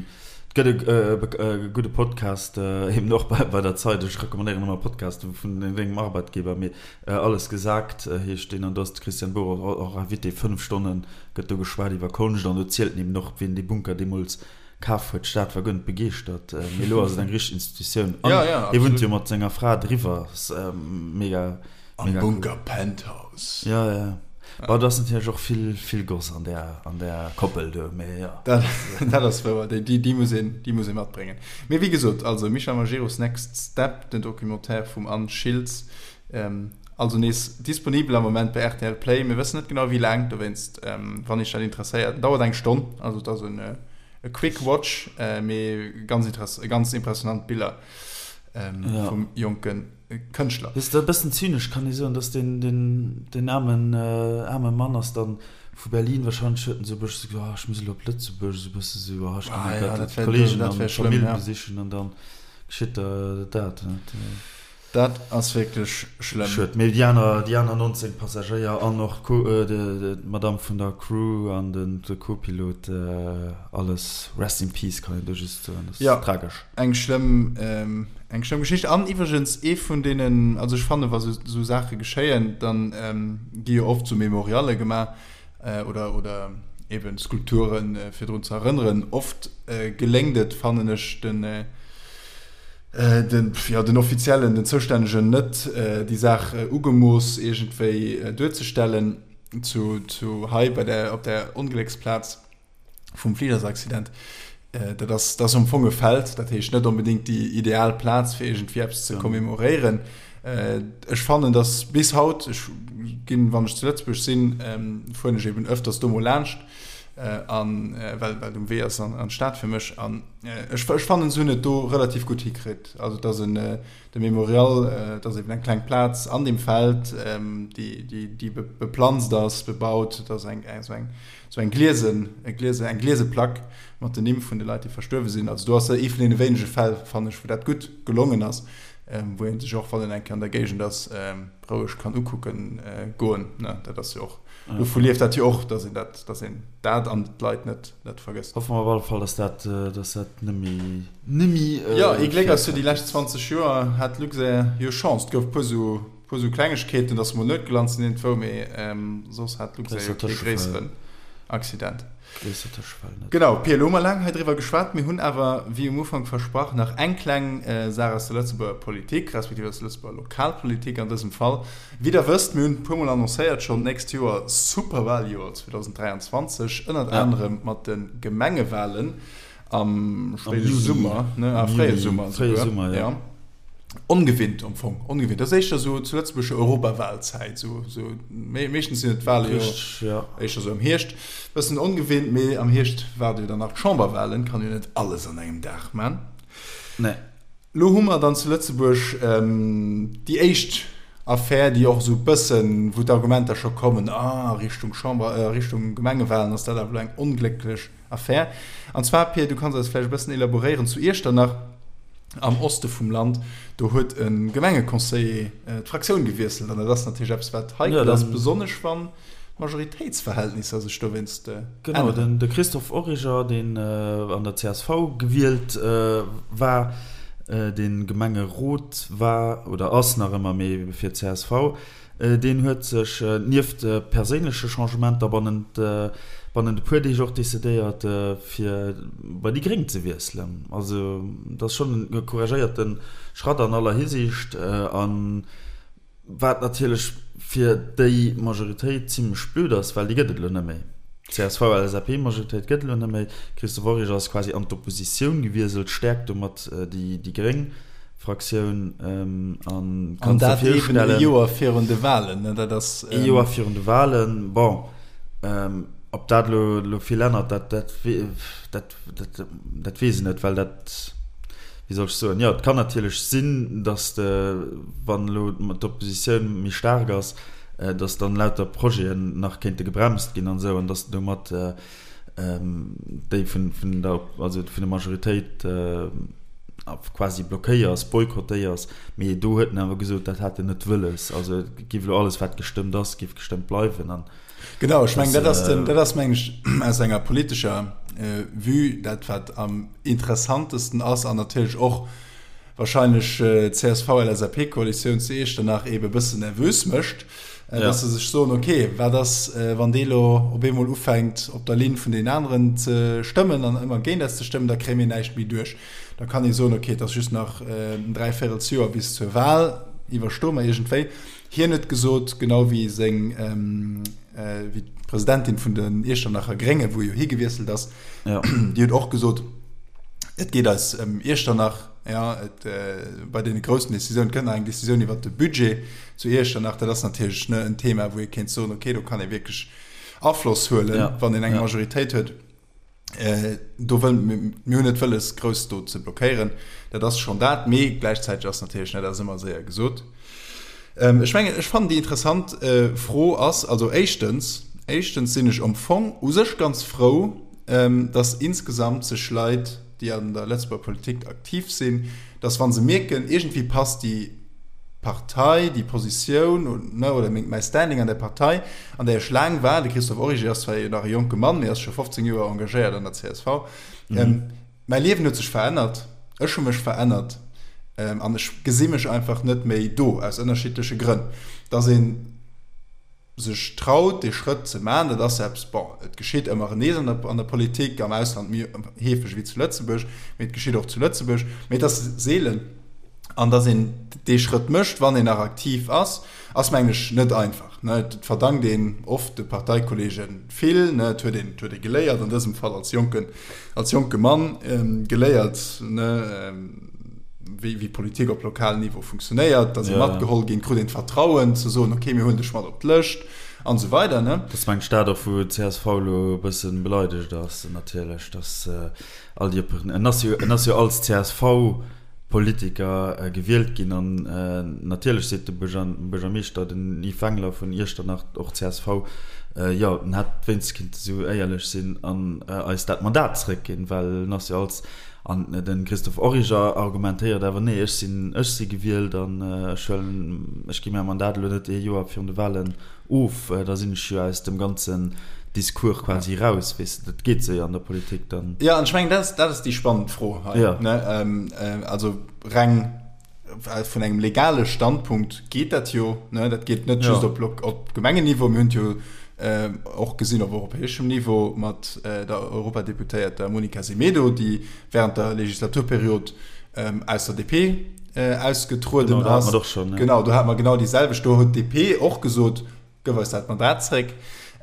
gëtt e gudde Podcast, eben och bei der Zeit, ech recommandéieren ëmmer Podcaste vun dengem Arbeitgeber, mee Alles gesagt heescht deen an do ass de Christian Bohrer och Invité. 5 Stonne gëtt do geschwat iwwer Konscht an do zielt en eben och, wien dee Bunker deemools kaf huet. D'Stad war guer net begeeschtert, mee elo ass et eng richteg Institutioun an hie wunnt jo mat senger Fra driwwer, ass mega. Am Bunker Penthouse. Jo, jo. Bon, do ass natierlech och vill, vill Goss an där, an där Koppel do, mee jo. Dat, dat ass wouer. Déi, déi, déi muss een, déi muss ee matbréngen. Mee wéi gesot, also Michel Majerus Next Step, den Documentaire vum Anne Schiltz, also nees disponibel am Moment bei rtl Play. Mir wëssen net genau wéi laang, dowéinst, wann iech dat interesséiert, en dauert eng Stonn, also et ass en e Quick Watch, mee ganz interess-, ganz impressionant Biller vum jonken. Kënschtler. Weess de, e bëssen zynesch kann ee soen, dass deen, deen, deen aarmen, aarme Mann ass dann vu Berlin, wahrscheinlech huet en esou e bëssche gesot, oh, ech muss elo op Lëtzebuerg, esou e bësse sou, oh, ech ginn elo grad d'Kollegen an d'Famill besichen an dann geschitt der dat. Dat ass wierklech schlëmm. Schued. Mee déi aner, déi aner 19 Passagéier an och d'Madame vun der Crew an den, de Co-Pilot, alles rest in peace kann een do just soen. Dat ass tragesch. Eng schlëmm, eng schlëmm Geschicht. An iwwregens ee vun deenen, also ech fannen, wa sou Saache geschéien, dann gi jo oft sou Memorialle gemaach. oder, oder eben Skulpturen, fir drun ze erënneren. Oft geléngt et, fannen ech, den, den, jo, den Offiziellen, den Zoustännegen net, déi Saach ugemooss iergendwéi duerzestellen. Zu, zu hei bei der, op der Onglécksplaz vum Fligersaccident, dat ass, dat ass am Fong e Feld, dat heescht net onbedéngt déi ideal Plaz fir iergendwéi eppes ze commemoréieren. Ech fannen, datt bis haut, ech ginn, wann ech zu Lëtzebuerg sinn, fueren ech eben öfters do mol laanscht, an well well et um Wee ass an an d'Stad fir mech, an ech ech fannen, se hunn et do relativ gutt hikritt. Also et ass en De Memorial, et ass eben eng kleng Plaz an deem Feld, déi, déi beplanzt ass, bebaut. Et ass eng, esou eng, esou eng gliesen, e gliese, eng gliese Plack mat den Nimm vun de Leit, déi verstuerwe sinn. Also do ass ee vun deene wéinege Fäll, fannen ech, wou dat gutt gelongen ass, wou ee sech och, wann een eng Kéier an der Géigend ass, roueg kann ukucken goen. Dat ass jo och, dovu lieft dat jo och, dass een dat, dass een dat an d'Leit net, net vergësst. Hoffe mer op alle Fall, dass dat, dass dat nëmme, nëmme. Jo, ee Gléck ass jo, déi lescht 20 Joer hat d'Luxair jo Chance. Et gouf puer sou, puer sou Klengegkeeten, dass se mol net gelant sinn iergendwou, mee soss hat d'Luxair jo kee gréisseren Accident. Gréisser Tëschefäll net. Genau, Pia, elo hu mer laang hei driwwer geschwat. Mir hunn awer, wéi um Ufank versprach, nach eng kleng Saach aus der Lëtzebuerger Politik, respektiv aus der Lëtzebuerger Lokalpolitik an dësem Fall. Wéi der wësst, mir hunn e puermol annoncéiert schonn, d'nächst Joer, Superwaljoer 2023, ënnert anerem mat de Gemengewalen am spéide Summer, ne, ah, fréie Summer esouguer, jo. Ongewinnt am Fong, ongewinnt. Dat ass éischter esou zu Lëtzebuerg Europawalzäit, esou, esou, meeschtens sinn et d'Wale jo éischter esou am Hierscht. Bëssen ongewinnt, mee am Hierscht waarde jo dann nach d'Chamberwalen, kann jo net alles an engem Dag man. Nee. Lo hu mer dann zu Lëtzebuerg déi éischt Affär, déi och esou e bëssen, wou d'Argumenter scho kommen, ah, a Richtung Chamber, a Richtung Gemengewalen ass dat awer elo eng onglécklech Affär. An zwar, Pir, du kanns eis vläicht e bëssen elaboréieren, zu Iechternach am Oste vum Land, do huet e Gemengeconseiller d'Fraktioun gewiesselt. An dat ass natierlech eppes, wat heikel ass, besonnesch wann d'Majoritéitsverhältnisser sech dowéinst änneren. Genau, de Christophe Origer, deen an der csv gewielt war, dee Gemengerot war oder ass nach ëmmer, mee fir d'CSV, deen huet sech nieft perséinleche Changementer bannent bannent e puer Deeg och decidéiert, fir bei déi Gréng ze wiesselen. Also dat ass schonn e couragéierte Schratt an aller Hisiicht an Wat natierlech fir déi Majoritéit zimlech blöd ass, well déi gëtt et elo net méi. D'CSV-LSAP-Majoritéit gëtt et elo net méi. Christophe Origer ass quasi an d'Oppositioun gewieselt, stäerkt domat déi gréng Fraktioun an kann sech virstellen. An dat eben e Joer virun de Walen, ne? Dat ass. E Joer virun de Walen. Bon, ob dat elo vill ännert, dat, dat, dat. Dat, dat weess ech net, well dat, wéi soll ech soen, jo, et kann natierlech sinn, datt de, wann elo d'Oppositioun méi staark ass, datt dann lauter Projeten nach kéinte gebremst ginn an esou, an datt domat déi vun, vun der, also vun der Majoritéit quasi blockéiers, boykottéiers. Mee do huet en awer gesot, dat hätt en net wëlles. Also et géif elo alles, wat gestëmmt ass, géif gestëmmt bleiwen an. Genau, ech mengen, dat ass den, dat ass meng ech aus enger politescher Vue dat wat am interessantesten ass an natierlech och wahrscheinlech d'CSV-LSAP-Koalitioun zu Iechternach eebe bëssen nervös mécht, dass se sech soen, okay, wat ass wann dee lo op eemol ufänkt op der Linn vun deenen aneren ze stëmmen an ëmmer géint eis ze stëmmen, da kréie mir näischt méi duerch. Da kann ee soen, okay, et ass just nach en Dräivéirelsjoer bis zur Wahl, iwwerstoe mer iergendwéi. Hien huet gesot, genau wéi seng, wéi d'Presidentin vun den Iechternacher Gréngen, wou jo hie gewiesselt ass, déi huet och gesot, et geet eis ëm Iechternach, jo, et bei deene groussen Decisiounen, et kënnt nach eng Decisioun iwwert de Budget zu Iechternach, dat ass natierlech, ne, en Thema, wou ee kéint soen, okay, do kann ee wierklech Afloss huelen, wann een eng Majoritéit huet. Do wëll, mir hunn net wëlles, grouss do ze blockéieren. Dat ass schonn dat. Mee gläichzäiteg ass natierlech, net, dat ass ëmmer séier gesot. Ech mengen, ech fannen déi interessant Fro ass, also éischtens, éischtens sinn ech am Fong u sech ganz frou, datt insgesamt sech Leit, déi an der Lëtzebuerger Politik aktiv sinn, datt wa se mierken, iergendwéi passt déi Partei, déi Positioun, ne, oder meng, mäi Standing an der Partei, an där ech laang war, de Christophe Origer ass zwar jo nach e jonke Mann, mee ass scho 15 Joer engagéiert an der csv, mäi Liewen huet sech verännert, ech hu mech verännert an ech gesi mech einfach net méi do, aus ënnerschiddleche Grënn, dass een. sech traut, dee Schrëtt ze maachen, dat ass eppes, bon, et geschitt ëmmer nees an der, an der Politik, am Ausland méi heefeg wéi zu Lëtzebuerg, mee et geschitt och zu Lëtzebuerg, mee et ass seelen. An datt een dee Schrëtt mécht, wann een nach aktiv ass, ass, mengen ech, net einfach. Et verdankt een oft de Parteikollege vill, ne, et huet een, et huet ee geléiert, an dësem Fall als jonken, als jonke Mann geléiert, ne, wéi, wéi Politik op lokalem Niveau funktionéiert, datt ee matgeholl ginn, krut een d'Vertrauen ze soen, okay, mir huelen dech mat op d'Lëscht an esou weider, ne. Dat ass, mengen ech, dat och, wou d'CSV elo e bësse beleidegt ass, natierlech, datt all déi, en ass jo, en ass jo als CSV, Politiker gewielt ginn an natierlech seet de Buergermeeschter, den Yves Wengler vun Iechternach, och csv, jo en hätt wéinstens kinnte sou éierlech sinn an eis dat Mandat zeréckginn, well en ass jo als, an de Christophe Origer argumentéiert awer, nee ech sinn, ech si gewielt an ech huelen, ech gi mäi Mandat elo net ee Joer virun de Wahlen of, da sinn ech jo aus dem ganzen Discours quasi raus, weess de, dat geet sou jo an der Politik dann. Jo, an ech mengen, dat ass, dat ass déi spannend Fro hei, Jo. ne? Also reng vun engem legale Standpunkt geet dat jo, ne? Dat geet net just op Lok-, op Gemengenniveau, mir hunn et jo och gesinn op europäeschem Niveau mat der Europadeputéierter Monica Semedo, déi während der Legislaturperiod aus der DP ausgetrueden ass. Genau, do hate mer et och schonn. Genau, do hate mer genau déi selwecht. Do huet d'DP och gesot, Gëff eis dat Mandat zréck.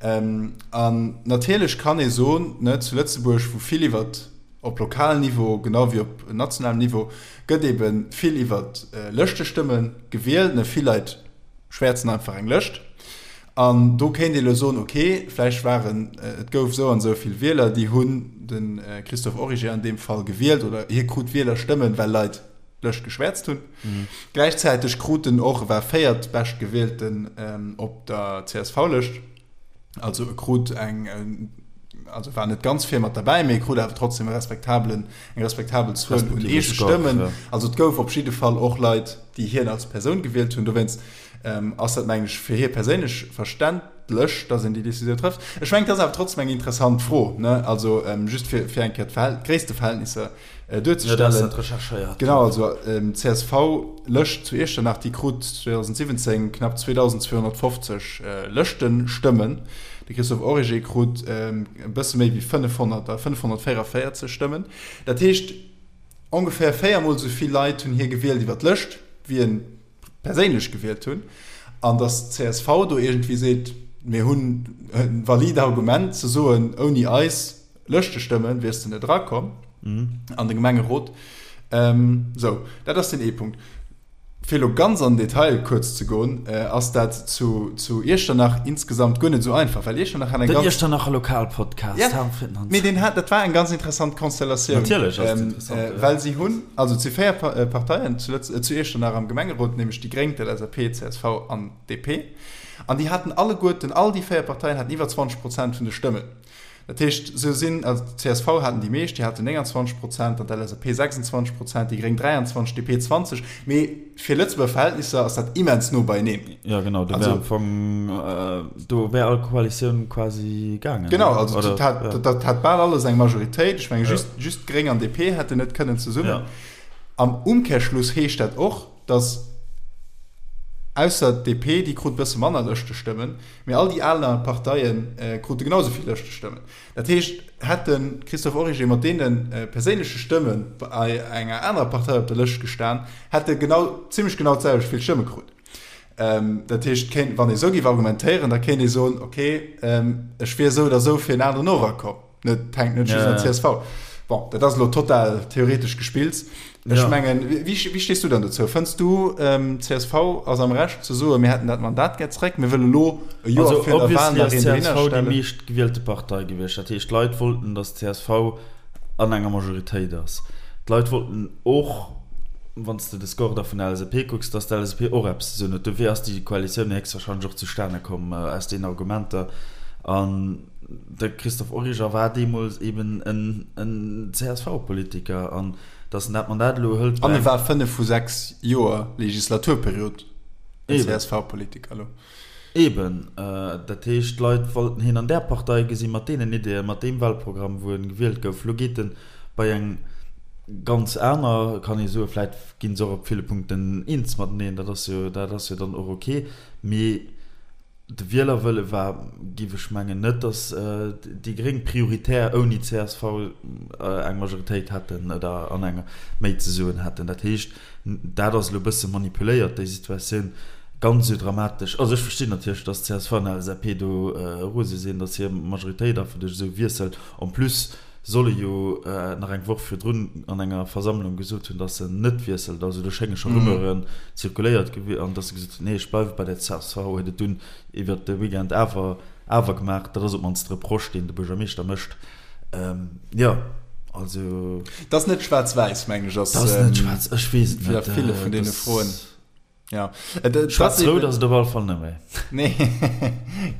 An natierlech kann ee soen, ne, zu Lëtzebuerg, wou vill iwwer op lokalem Niveau genau wéi op nationalem Niveau gëtt ebe vill iwwer Lëschtestëmme gewielt, ne, vill Leit schwäerzen einfach eng Lëscht. An do kéint ee elo soen, ok, vläicht waren, et gouf esou an esou vill Wieler, déi hunn de Christophe Origer an deem Fall gewielt oder hie krut Wielerstëmmen, well Leit d'Lëscht geschwäerzt hunn. Gläichzäiteg krut en och, e war véiertbeschtgewielten op der CSV-Lëscht, also e krut eng, also war net ganz vir mat derbäi, mee e krut awer trotzdem e respektabelen, eng respektabel Zuel un eege Stëmmen. Also et gouf op jidde Fall och Leit, déi hien als Persoun gewielt hunn. Dowéinst Ass dat, mengen ech, fir hie perséinlech verständlech, dass een déi Décisioun trëfft. Ech mengen, et ass awer trotzdem eng interessant Fro, ne? Also just fir, fir eng Kéier d'Gréissteverhältnisser duerzestellen. Jo, dat ass dat recherchéiert. Genau, also d'CSV-Lëscht zu Iechternach, déi krut 2017 knapp 2.250 Lëschtestëmmen. De Christophe Origer krut e bësse méi wéi 500, 544 Stëmmen. Dat heescht, ongeféier véiermol esou vill Leit hunn hie gewielt iwwer d'Lëscht, wéi en perséinlech gewielt hunn, an datt d'CSV do iergendwéi seet, mir hunn e valide Argument ze soen, ouni eis Lëschtestëmme wiers de net erakomm an de Gemengerot. Sou, dat ass deen ee Punkt. Fir elo ganz an den Detail kuerz ze goen, ass dat zu Iechternach insgesamt guer net esou einfach, well Iechternach hat eng ganz. Den Iechternacher Lokalpodcast, Ja, mee deen hat, dat war eng ganz interessant Konstellatioun. Natierlech ass et interessant, jo. Well si hunn, also et si 4 Parteien zu Lëtz-, zu Iechternach am Gemengerot, nämlech déi Gréng, d'LSAP, d'CSV an d'DP. An déi haten alleguerten, all déi 4 Parteien haten iwwer 20 Prozent vun de Stëmmen. Dat heescht, se sinn, also d'CSV haten déi meescht, déi haten 29 Prozent, dann d'LSAP 26 Prozent, déi Gréng 23, d'DP 20. Mee fir Lëtzebuerger Verhältnisser ass dat immens no beieneen. Jo genau, do wär am Fong, do wär all Koalitioun quasi gaangen. Genau, also dat hat, dat hat bal alles eng Majoritéit. Ech menge just, just d'Gréng an DP hätten net kënnen zesummen. Am Umkehrschluss heescht dat och, datt ausser d'DP, déi krut e bësse manner Lëschtestëmmen, Mee all déi aner Parteie krute genau esou vill Lëschtestëmmen. Dat heescht, hätt de Christophe Origer mat deene perséinleche Stëmme bei enger anerer Partei op der Lëscht gestan, hätt e genau, zimmlech genau d'selwecht vill Stëmme krut. Dat heescht, kéint, wann ee esou géif argumentéieren, da kéint ee soen, okay, ech wier esou oder esou fir en aneren och erakomm. Net, hänkt net just an der CSV. Bon, dat ass elo total theoretesch gespillt. Ech ja. mengen, wéi, wéi stees du dann dozou? Fënns du, ähm, CSV ass am Recht ze soen, mir hätten dat Mandat gär zréck, mir wëlle lo e Joer also, virun der Wahl nach een dohinner stellen? CSV déi meescht gewielte Partei gewiescht. Dat heescht, d'Leit wollten, datt d'CSV an enger Majoritéit ass. D'Leit wollten och, wann s de de Score da vun der LSAP kucks, datt d'LSAP och eppes ze soen huet. Dofir ass déi Koalitioun héchstwahrscheinlech och zustane komm aus deenen Argumenter. An De Christophe Origer war deemools eben en CSV-Politiker an datt en dat Mandat elo hëlt. An e war 5 vu 6 Joer Legislaturperiod en CSV-Politiker elo. Eben. Dat heescht, d'Leit wollten hien an där Partei gesinn, mat deenen Ideeën, mat deem Wahlprogramm, wou en gewielt gouf. Elo geet en bei eng ganz aner, kann ee soen. Vläit gi se och op ville Punkten eens mateneen, dat ass jo, dat ass jo dann och ok. Mee. De Wielerwëlle war, géif ech mengen, net, datt déi Gréng prioritär ouni csv eng Majoritéit hätten oder an enger méi ze soen hätten. Dat heescht, dat ass elo e bësse manipuléiert, déi Situatioun. Ganz esou dramatesch, also ech verstinn natierlech, datt csv an LSAP do rose sinn, datt hir Majoritéit einfach duerch esou Wiessel, en plus soll e jo nach eng Woch virdrun an enger Versammlung gesot hunn, datt en net wiesselt. Also do schénge scho Rumeuren zirkuléiert gewi an datt e gesot huet, nee ech bleiwe bei der csv, huet et dunn iwwert de Weekend awer awer gemaach. Dat ass op d'mannst de Reproche, deen de Buergermeeschter mécht. Jo, also. Dat ass net schwaarz-wäiss, mengen ech, ass. Dat ass net schwaarz, ech weess et net. Fir ville vun deene Froen. Ja. Äh, Schwarz-Rot ass et op alle Fall net méi. Nee,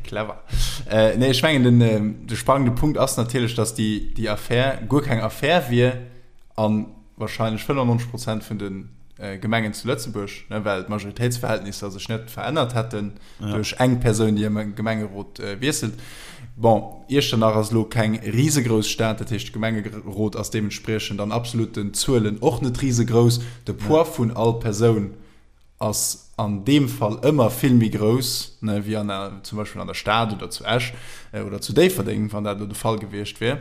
clever. Äh, nee, ech mengen, den, äh, de spannende Punkt ass natierlech, dass déi, déi Affär guer keng Affär wier an wahrscheinlech 95 Prozent vun den äh, Gemengen zu Lëtzebuerg, ne, well d'Majoritéitsverhältnisser sech net verännert hätten ja. duerch eng Persoun, déi am Gemengerot äh, wiesselt. Bon, Iechternach ass elo keng risegrouss Stad, dat heescht de Gemengerot ass deementspriechend an absoluten Zuelen och net risegrouss. De Poids vun all Persoun ass an deem Fall ëmmer vill méi grouss, ne, wéi an der, zum Beispill an der Stad oder zu Esch oder zu Déifferdeng, wann dat elo de Fall gewiescht wier.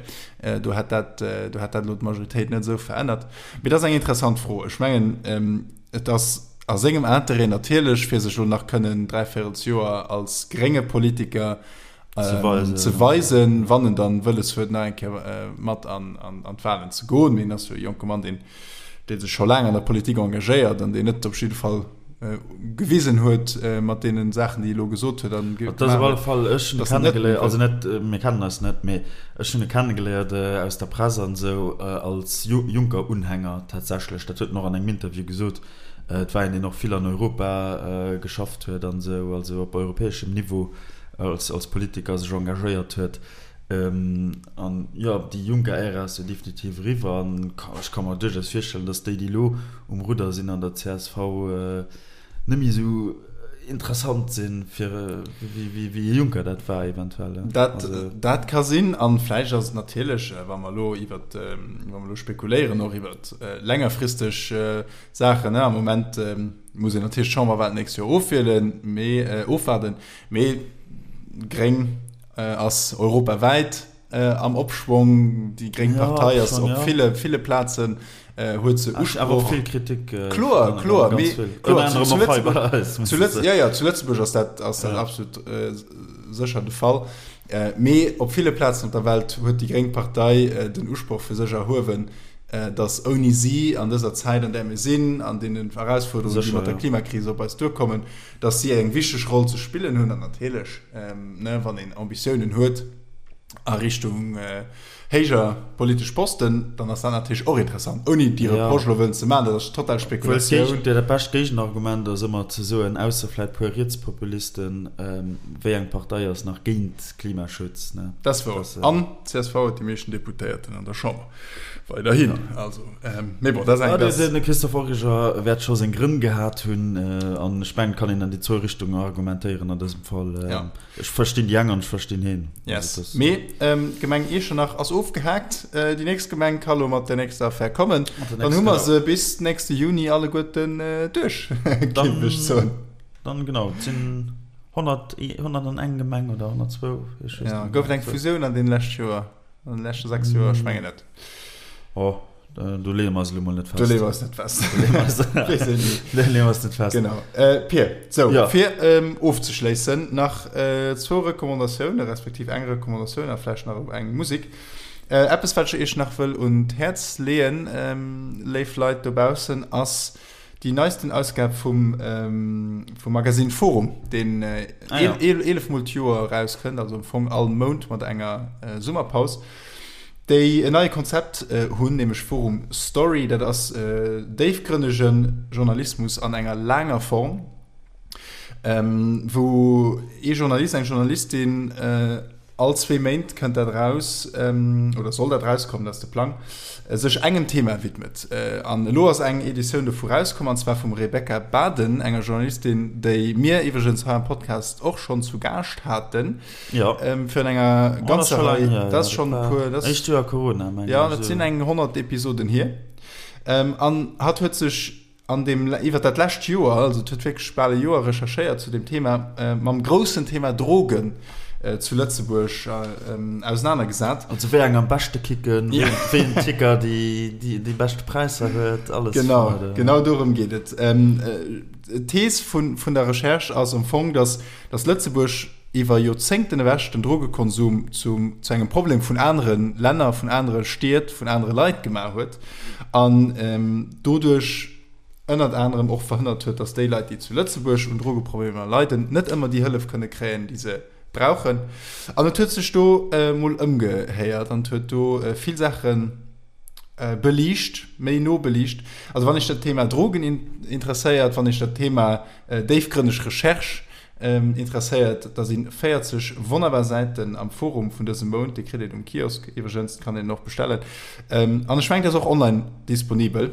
Do hätt dat, do hätt dat elo d'Majoritéit net esou verännert. Mee dat ass eng interessant Fro. Ech mengen, et ass a sengem Interêt natierlech, fir sech elo nach kënnen dräivéierelsjoer als grénge Politiker ze weisen, wann en dann wëlles huet, nach eng Kéier mat an d'Wahlen ze goen. Mee en ass jo e jonke Mann, deen, dee sech scho laang an der Politik engagéiert an deen net op jidde Fall gewisen huet mat deene Saachen, déi e elo gesot huet an gemaach huet. Dat ass op alle Fall, ech hunn e kennegeléiert, also net, mir kennen eis net, mee ech hunn e kennegeléiert aus der Press an esou als Juncker-Unhänger tatsächlech. Dat huet en och an engem Interview gesot. Et war een, deen och vill an Europa geschafft huet an esou, also op europäeschem Niveau als, als Politiker sech engagéiert huet. An jo, déi Juncker-Ära ass jo definitiv eriwwer an ech ka mer duerchaus virstellen, datt déi, déi elo um Rudder sinn an der csv, net méi esou interessant sinn, fir wéi e Juncker dat war eventuell. Dat, dat ka sinn. An vläicht ass et natierlech, wa mer elo iwwert, wa mer elo spekuléieren och iwwert längerfristeg Saachen, am Moment muss een natierlech d'Chamberwahlen d'nächst Joer ofwielen, mee ofwaarden, mee gréng ass europawäit am Opschwong. Déi gréng Partei ass op ville, ville Plazen huet se Usproch. Awer och vill Kritik. Kloer, kloer, mee kloer, zu Lëtzebuerg, zu Lëtz, jo, jo, zu Lëtzebuerg ass dat, ass dat absolut sécher de Fall. Mee op ville Plazen op der Welt huet déi gréng Partei den Usproch fir sech erhuewen, datt ouni si an dëser Zäit, an där mir sinn, an deenen Erausfuerderungen, déi mat der Klimakris op eis duerkommen, datt si eng wichteg Roll ze spillen hunn. An natierlech, wann een Ambitiounen huet a Richtung héijer politesch Posten, dann ass dat natierlech och interessant, ouni déi Reproche elo wëllen ze maachen. Dat ass total Spekulatioun. Dat bescht Géigenargument ass ëmmer ze soen, ausser vläit puer Rietspopulisten, wéi eng Partei ass nach géint Klimaschutz? Dat ass wouer. An csv huet déi meeschten Deputéierten an der Chamber. Weiderhin. Also, mee bon, dat ass eng. De Christophe Origer wäert scho seng Grënn gehat hunn. An ech mengen, et kann een an déi zwou Richtungen argumentéieren an dësem Fall. Ech verstinn déi eng an ech verstinn heen. Yes. Mee d'Gemeng Iechternach ass ofgehaakt. Déi nächst Gemeng ka lo mat der nächster Affär kommen. Dann hu mer se bis nächste Juni alleguerten duerch, géif ech soen. Dann, genau, et sinn 100, 101 Gemeng oder 102, ech weess net méi. Gouf et eng Fusioun an deene leschte Joer? An den leschte 6 Joer? Ech mengen net. Oh, do leeë mer eis elo mol net fest. Do leeë mer eis net fest. Do leeë mer eis net fest. Genau. Äh, Pir, so, ja. fir ähm, ofzeschléissen, nach äh, zwou Recommandatiounen, respektiv eng Recommandatioun a vläicht nach eng Musik. Äh, eppes, wat ech iech nach wëll un d'Häerz leeën, ähm, léif Leit dobaussen, ass déi neisten Ausgab vum, ähm, vum Magazine Forum, deen äh, ah, ja. 11 Mol d'Joer erauskënnt, also am Fong all Mount mat enger äh, Summerpaus, déi en neie Konzept äh, hunn, nämlech Forum Story. Dat ass äh, déifgrënnege Journalismus an enger laanger Form, ähm, wou ee Journalist, eng Journalistin äh, All zwee Méint kënnt dat eraus, oder soll dat erauskommen, dat ass de Plang, sech engem Thema widmet. An elo ass eng Editioun dovu rauskomm, an zwar vum Rebecca Baden, enger Journalistin, déi mir iwwregens hei am Podcast och schonn zu Gaascht haten, virun enger ganzer Rei, dat ass schonn e puer, dat ass, jo, dat sinn eng 100 Episoden hier. An hatt huet sech. an deem, iwwer dat lescht Joer, also et huet wierklech bal e Joer recherchéiert zu deem Thema, mam groussen Thema Drogen zu Lëtzebuerg ausenanergesat. Also wéi eng am beschte kicken, wéi en Ticker déi beschte Präisser huet, alles. Genau, genau dorëm geet et. D'Thees vun der Recherche ass am Fong, datt Lëtzebuerg iwwer Joerzéngten ewech den Drogekonsum zu engem Problem vun anere Länner, vun anere Stied, vun anere Leit gemaach huet an doduerch ënnert anerem och verhënnert huet, datt déi Leit, déi zu Lëtzebuerg un Drogeproblemer leiden, net ëmmer déi Hëllef kënne kréien, déi se brauchen. An et huet sech do mol ëmgehéiert an et huet do vill Saache beliicht, méi no beliicht. Also wann iech dat Thema Drogen interesséiert, wann iech dat Thema déifgrënneg Recherche Interesséiert, da si 40 wonnerbar Säiten am Forum vun dësem Mount. Déi kritt een um Kiosk iwwregens, kann een och bestellen. An ech mengen, dat ass och online disponibel.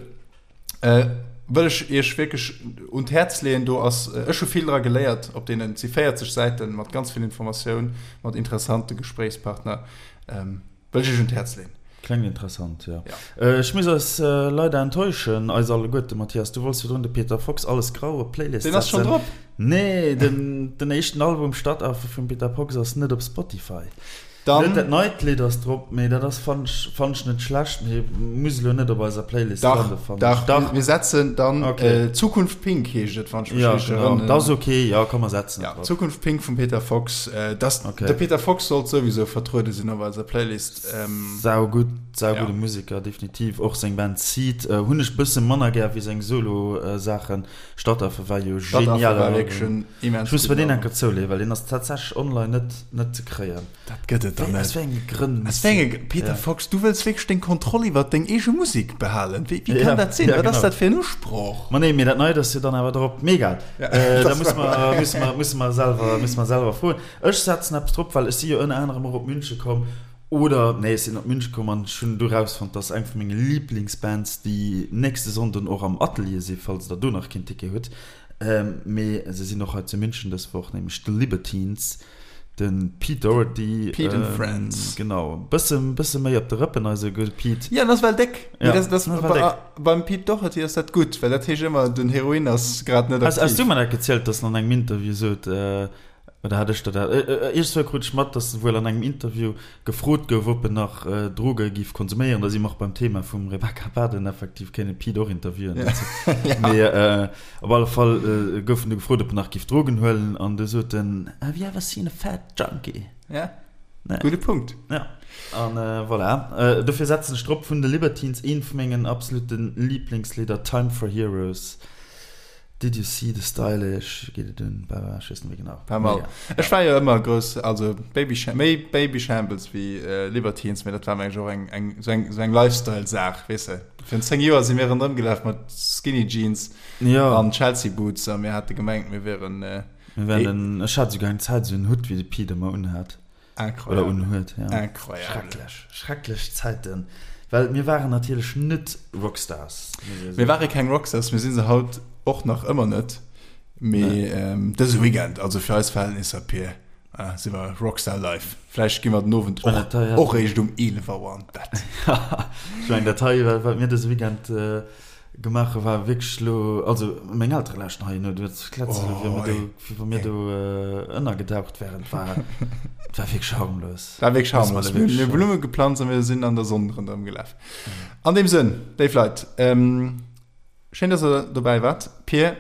Wëll ech iech wierklech un d'Häerz leeën. Do ass, ech hu vill dra geléiert op deenen, et si 40 Säiten mat ganz vill Informatioun, mat interessante Gespréichspartner. Wëll ech iech un d'Häerz leen. Klengt interessant, jo. Ech muss eis leider enttäuschen, eis alleguerte. Mathias, du wollts virdrun de Peter Fox Alles Grau op d'Playlist setzen. Deen ass schonn drop! Nee, den éischten Album Stadtaffe vum Peter Fox ass net op Spotify. Dann. Net dat neit Lidd ass drop, mee dat ass, fannen ech, fannen ech net schlecht, mee muss elo net op eiser Playlist lande, fannen ech. Dach, dach, mir setzen dann Zukunft Pink heescht et, wann ech mech richteg erënneren. Jo, genau, dat ass ok, jo, komm mer setzen et drop. Zukunft Pink vum Peter Fox. Das, okay. De Peter Fox sollt souwisou vertruede sinn op eiser Playlist. Ähm, sau gutt, sau ja. gudde Musiker, definitiv. Och seng Band Seed äh, hunn ech bësse manner gär wéi seng Solo-Saachen. Stadtaffe war jo genial. War wierklech en immens Ech muss mir deen enker zouleeën, well deen ass tatsächlech online net, net ze kréien. Dat gëtt et dann net. Aus wéi enge Grënn? Aus wéi enge Peter Fox, du wëlls wierklech deng Kontroll iwwert deng eege Musek behalen? Wéi, wéi kann dat sinn? Wat ass dat fir en Usproch? Ma nee, mee dat Neit ass jo dann awer drop. Mee egal, da musse mer, musse mer, musse mer selwer, musse mer selwer froen. Ech setzen eppes drop, well ech si jo ënner anerem och op Münche komm, oder nee, ech sinn op Münche komm an ech hunn do rausfonnt, dass eng vu menge Liblingsbands déi nächste Sonnden och am Atelier si, falls der do nach keen Ticket hutt. Mee se sinn och hei zu München dës Woch, nämlech The Libertines. De Pete Doherty. Pete and Friends. Genau. Bësse, bësse méi op de Rëppen, eise gudde Pete. Ja, en ass well déck. Ja, dat, dat, well déck. Beim Pete Doherty ass dat gutt, well dat heescht ëmmer, den Heroin ass grad net aktiv. Has du mer dat gezielt, dass en an engem Interview sot, oder hat ech der dat, iergendzwou krut ech mat, dass en wuel an engem Interview gefrot gouf, ob en nach Droge giff konsuméieren. Da si mer och beim Thema vum Rebecca Baden, effektiv kéint een Pete och interviewen dozou. Mee op alle Fall gouf en du gefrot, ob en nach giff Drogen huelen an du sot en, Have you ever seen a fat junkie? Ja, gudde Punkt. Ja, an voilà. Dofir setzen ech drop vun de Libertines eent vu mengen absolute Liiblingslidder, Time for Heroes. Did you see the stylish, geet et un, bla bla, ech weess net méi genau. Pas mal. Ech war jo ëmmer grouss, also Baby, méi Babyshambles wéi Libertines, mee dat war mengen ech och eng, eng, sou eng, sou eng Lifestyle-Saach, weess de. Virun 10 Joer si mir ronderëm gelaf mat Skinny Jeans an Chelsea Boots a mir hate gemengt, mir wieren. Mir wären, ech hat souguer eng Zäit esou en Hutt wéi de Pete ëmmer unhat. Incroyable. Oder unhuet, ja. Incroyable. Schrecklech, schrecklech Zäiten. Well mir waren natierlech net Rockstars. Mir ware keng Rockstars, mir si se haut och nach ëmmer net. Mee dëse Weekend, also fir eis Verhältnisser, Pir, si mer Rockstar life. Vläicht gi mer den Owend och eréischt um 11 Auer an d'Bett. Ech mengen, dat hei, wat mir dëse Weekend Gemaach hu war wierklech elo, also meng Eltere lauschten hei no, du hues kletzt elo wéi mir do, wéi wa mir do ënnergedaucht wären. Et war, et war wierklech harmlos. War wierklech harmlos. Mir hu Blumme geplanzt a mir sinn an der Sonn ronderëm gelaf. An deem Sënn, léif Leit, schéin, dass der dobäi waart. Pir,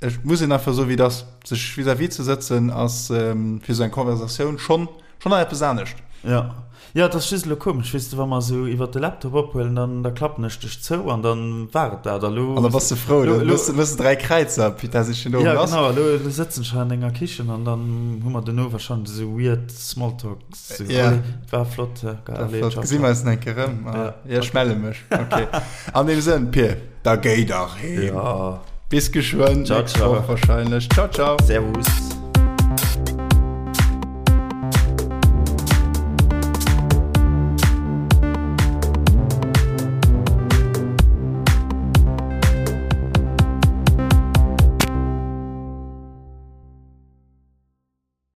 Ech muss een einfach soen, wéi et ass. Sech vis-à-vis ze sëtzen ass fir esou eng Conversatioun schonn schonn nach eppes anescht. Jo, jo, et ass just elo komesch, weess de, wa mer esou iwwert de Laptop ophuelen, dann da klappen ech dech zou an dann war et dat. A lo. An da bass de frou, da méchs de méchs de 3 Kräizer, putain, si schon do lass. Jo, genau, a lo elo sëtzen ech hei an denger Kichen an dann hu mer dono wahrscheinlech esou weird Smalltalks. Esou, Ja. allez, war flott, ja, geil, allez, ciao, Gesi mer eis nach eng Kéier erëm? Jo, ech melle mech. Ok. An deem Sënn, Pir, da géi dach heem. Ja. Bis geschwënn, Ciao, nächst Woch ciao. wahrscheinlech. Ciao, ciao. Servus.